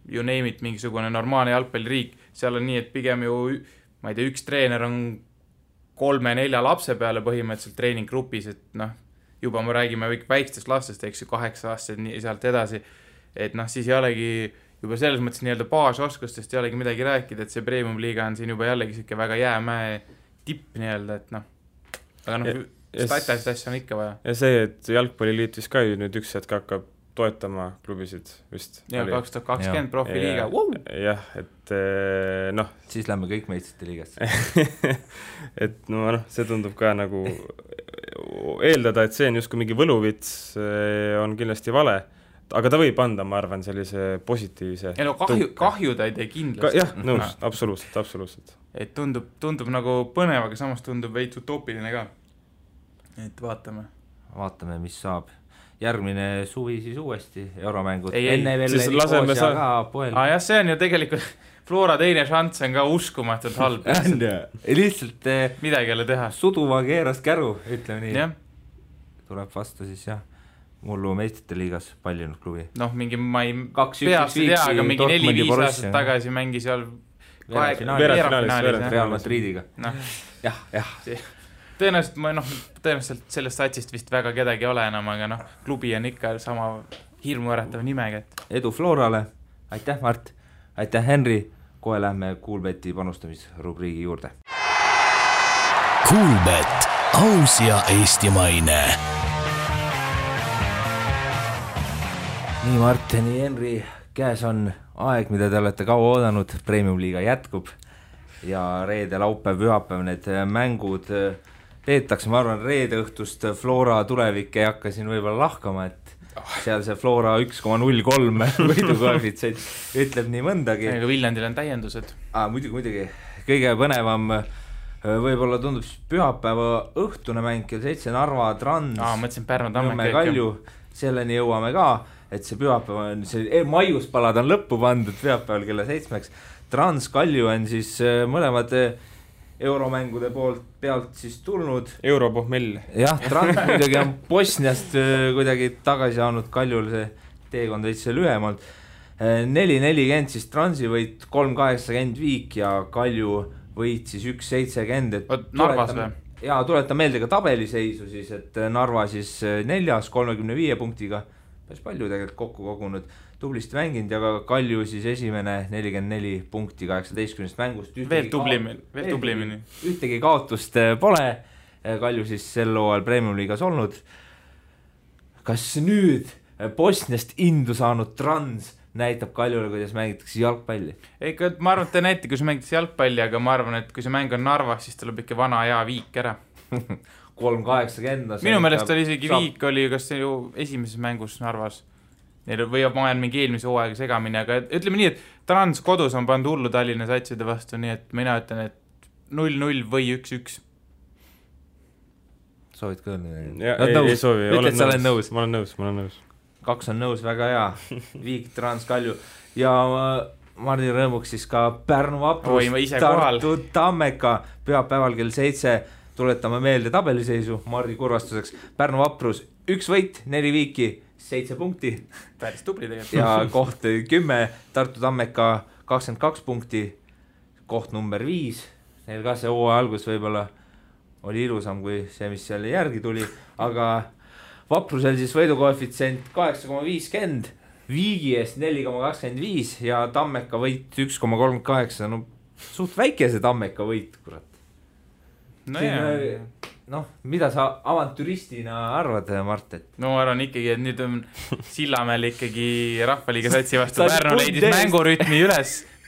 you name it, mingisugune normaalne jalgpalliriik, seal on nii, et pigem ju, ma ei tea, üks treener on 3-4 lapse peale põhimõtteliselt treeninggrupis, et juba me räägime väikestest lastest, eks ju, 8 aastased nii sealt edasi, et siis ei olegi juba selles mõttes nii-öelda baasoskustest ei olegi midagi rääkida, et see Premium Liiga on siin juba jällegi siuke väga jäämäe tipp nii-öelda, et aga statist asja on ikka vaja. Ja see, et Jalgpalliliit vist ka nüüd üks hetk hakkab toetama klubisid vist. Ja 2020 profiliiga. Jah, et siis lähme kõik meistrite liigast. et see tundub ka nagu eeldada, et see on justkui mingi võluvits, on kindlasti vale. Aga ta võib anda, ma arvan, sellise positiivse kahju ta ei tee kindlasti. Jah, nõus, absoluutselt. Et tundub nagu põnev, aga samas tundub veits utoopiline ka. Et vaatame, mis saab. Järgmine suvi siis uuesti euromängud. Enne veel Nikosia ka poel. Jah, see on ju tegelikult Flora teine šanss on ka uskumatult halb. Lihtsalt midagi jälle teha. Suduva keeras käru, ütleme nii. Ja. Tuleb vastu siis jah. Mullu meistrite liigas paljunud klubi. Mingi, ma ei peast ei tea, aga mingi 4-5 aastat tagasi mängi seal veerandfinaalis Real Madridiga. Jah. Tõenäoliselt sellest satsist vist väga kedagi ole enam, aga klubi on ikka sama hirmuäratav nimega. Edu Florale, aitäh Mart, aitäh Henri, kohe lähme Coolbeti panustamisrubriigi juurde. Coolbet, aus ja eestimaine. Nii Mart, nii Henri, käes on aeg, mida te olete kaua oodanud, Premium Liiga jätkub ja reede, laupäev, pühapäev need mängud peetakse, ma arvan, reede õhtust Flora tulevik ei hakka siin võib-olla lahkama, et seal see Flora 1,03 võidukoefitsient ütleb nii mõndagi. Aga Viljandil on täiendused. Muidugi, kõige põnevam võib-olla tundub pühapäeva õhtune mäng kell 7 Narva Trans. Mõtlesin Pärnu Tamme Kalju, selleni jõuame ka. Et see pühapäev on, see maiuspalad on lõppu pandud pühapäeval kella 7. Trans Kalju on siis mõlemad euromängude pealt siis tulnud. Europohmell. Jah, Trans muidugi on Bosniast kuidagi tagasi saanud, Kaljul see teekond veits lühemalt. 4-40 siis Transi võit, 3-80 Viik ja Kalju võit siis 1-70. Narvas või? Ja tuletan meelde ka tabeliseisu siis, et Narva siis 4. 35 punktiga. päris palju tegelikult kokku kogunud, tublisti mänginud ja ka Kalju siis esimene 44 punkti 18 mängust. Veel tublimini. Ühtegi kaotust pole, Kalju siis sel hooajal Premium liigas olnud. Kas nüüd Bosniast indu saanud Trans näitab Kaljule, kuidas mängitakse jalgpalli? Ega ma arvan, et te näite, kui see mängitakse jalgpalli, aga ma arvan, et kui see mäng on Narvas, siis tuleb ikka vana hea Viik ära. 3-80. Minu meelest oli isegi Viik oli kas see ju esimeses mängus Narvas. Või ma olen mingi eelmise hooaega segamini, aga ütleme nii, et Trans kodus on pannud hullu Tallinna satside vastu, nii et mina ütlen, et 0-0 või 1-1. Soovid ka ei soovi, olen nõus. Ma olen nõus. 2 on nõus, väga hea. Viik, Trans, Kalju ja Mardi rõõmuks siis ka Pärnu Vaprus, Tartu Tammeka pühapäeval kell 7. Tuletame meelde tabeliseisu Mardi kurvastuseks. Pärnu Vaprus 1 võit, 4 viiki, 7 punkti. Päris tubli tegelikult. Ja koht 10, Tartu Tammeka 22 punkti, koht number 5. Neil ka see hooaja algus võib-olla oli ilusam kui see, mis seal järgi tuli, aga Vaprusel siis võidukoefitsient 8,50, Viigi eest 4,25 ja Tammeka võit 1,38. No suht väike see Tammeka võit, kurat. No, mida sa avantüristina arvad, Mart? No ma arvan ikkagi, et nüüd on Sillamäel ikkagi Rahvaliiga satsi vastu Pärnu leidis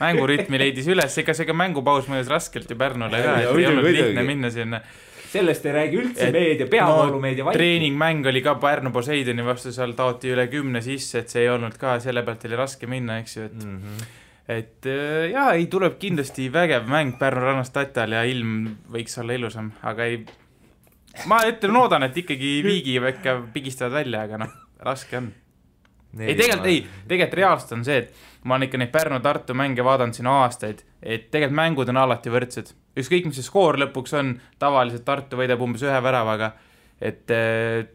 mängurütmi leidis üles, ega see ka mängupaus mõjus raskelt ju Pärnule ka, et ei olnud lihtne minna sinna. Sellest ei räägi üldse meedia, peavoolumeedia vaid. Treeningmäng oli ka Pärnu Poseidoni vastu, seal taoti üle 10 sisse, et see ei olnud ka, selle pealt oli raske minna, eks ju, et jaa, ei tuleb kindlasti vägev mäng Pärnu rannast Tatal ja ilm võiks olla ilusam, aga ei, ma loodan, et ikkagi Viigi ikka pigistavad välja, aga noh, raske on. Tegelikult reaalselt on see, et ma olen ikka neid Pärnu-Tartu mänge vaadanud siin aastaid, et tegelikult mängud on alati võrdsed. Ükskõik, mis see skoor lõpuks on, tavaliselt Tartu võidab umbes 1 väravaga, et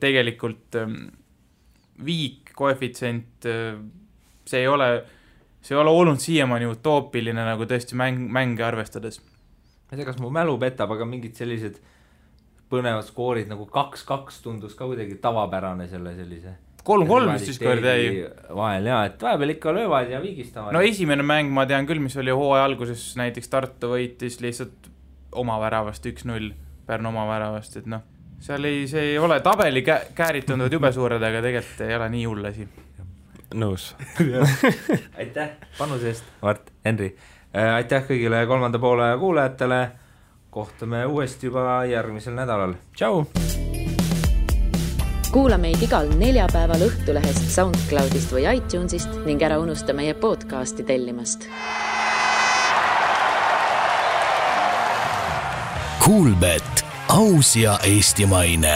tegelikult Viik, koefitsient, see ei ole olnud siiamaani utoopiline nagu tõesti mänge arvestades. Ma ei tea, kas mu mälu petab, aga mingid sellised põnevad skoorid nagu 2-2 tundus ka kuidagi tavapärane sellise 3-3 vist siis kord jäi vahel, jaa, et vahepeal ikka löövad ja vigistavad. No esimene mäng ma tean küll, mis oli hooaja alguses, näiteks Tartu võitis lihtsalt oma väravast 1-0, Pärnu oma väravast, et noh, see ei ole tabeli käärid tunduvad jube suured, aga tegelikult ei ole nii hull asi. Nõus. Aitäh panuse eest, Mart, Henri. Aitäh kõigile 3. poole kuulajatele. Kohtume uuesti juba järgmisel nädalal. Tšau! Kuula meid igal neljapäeval Õhtulehest, SoundCloudist või iTunesist ning ära unusta meie podcasti tellimast. Kuulbet, aus ja eestimaine.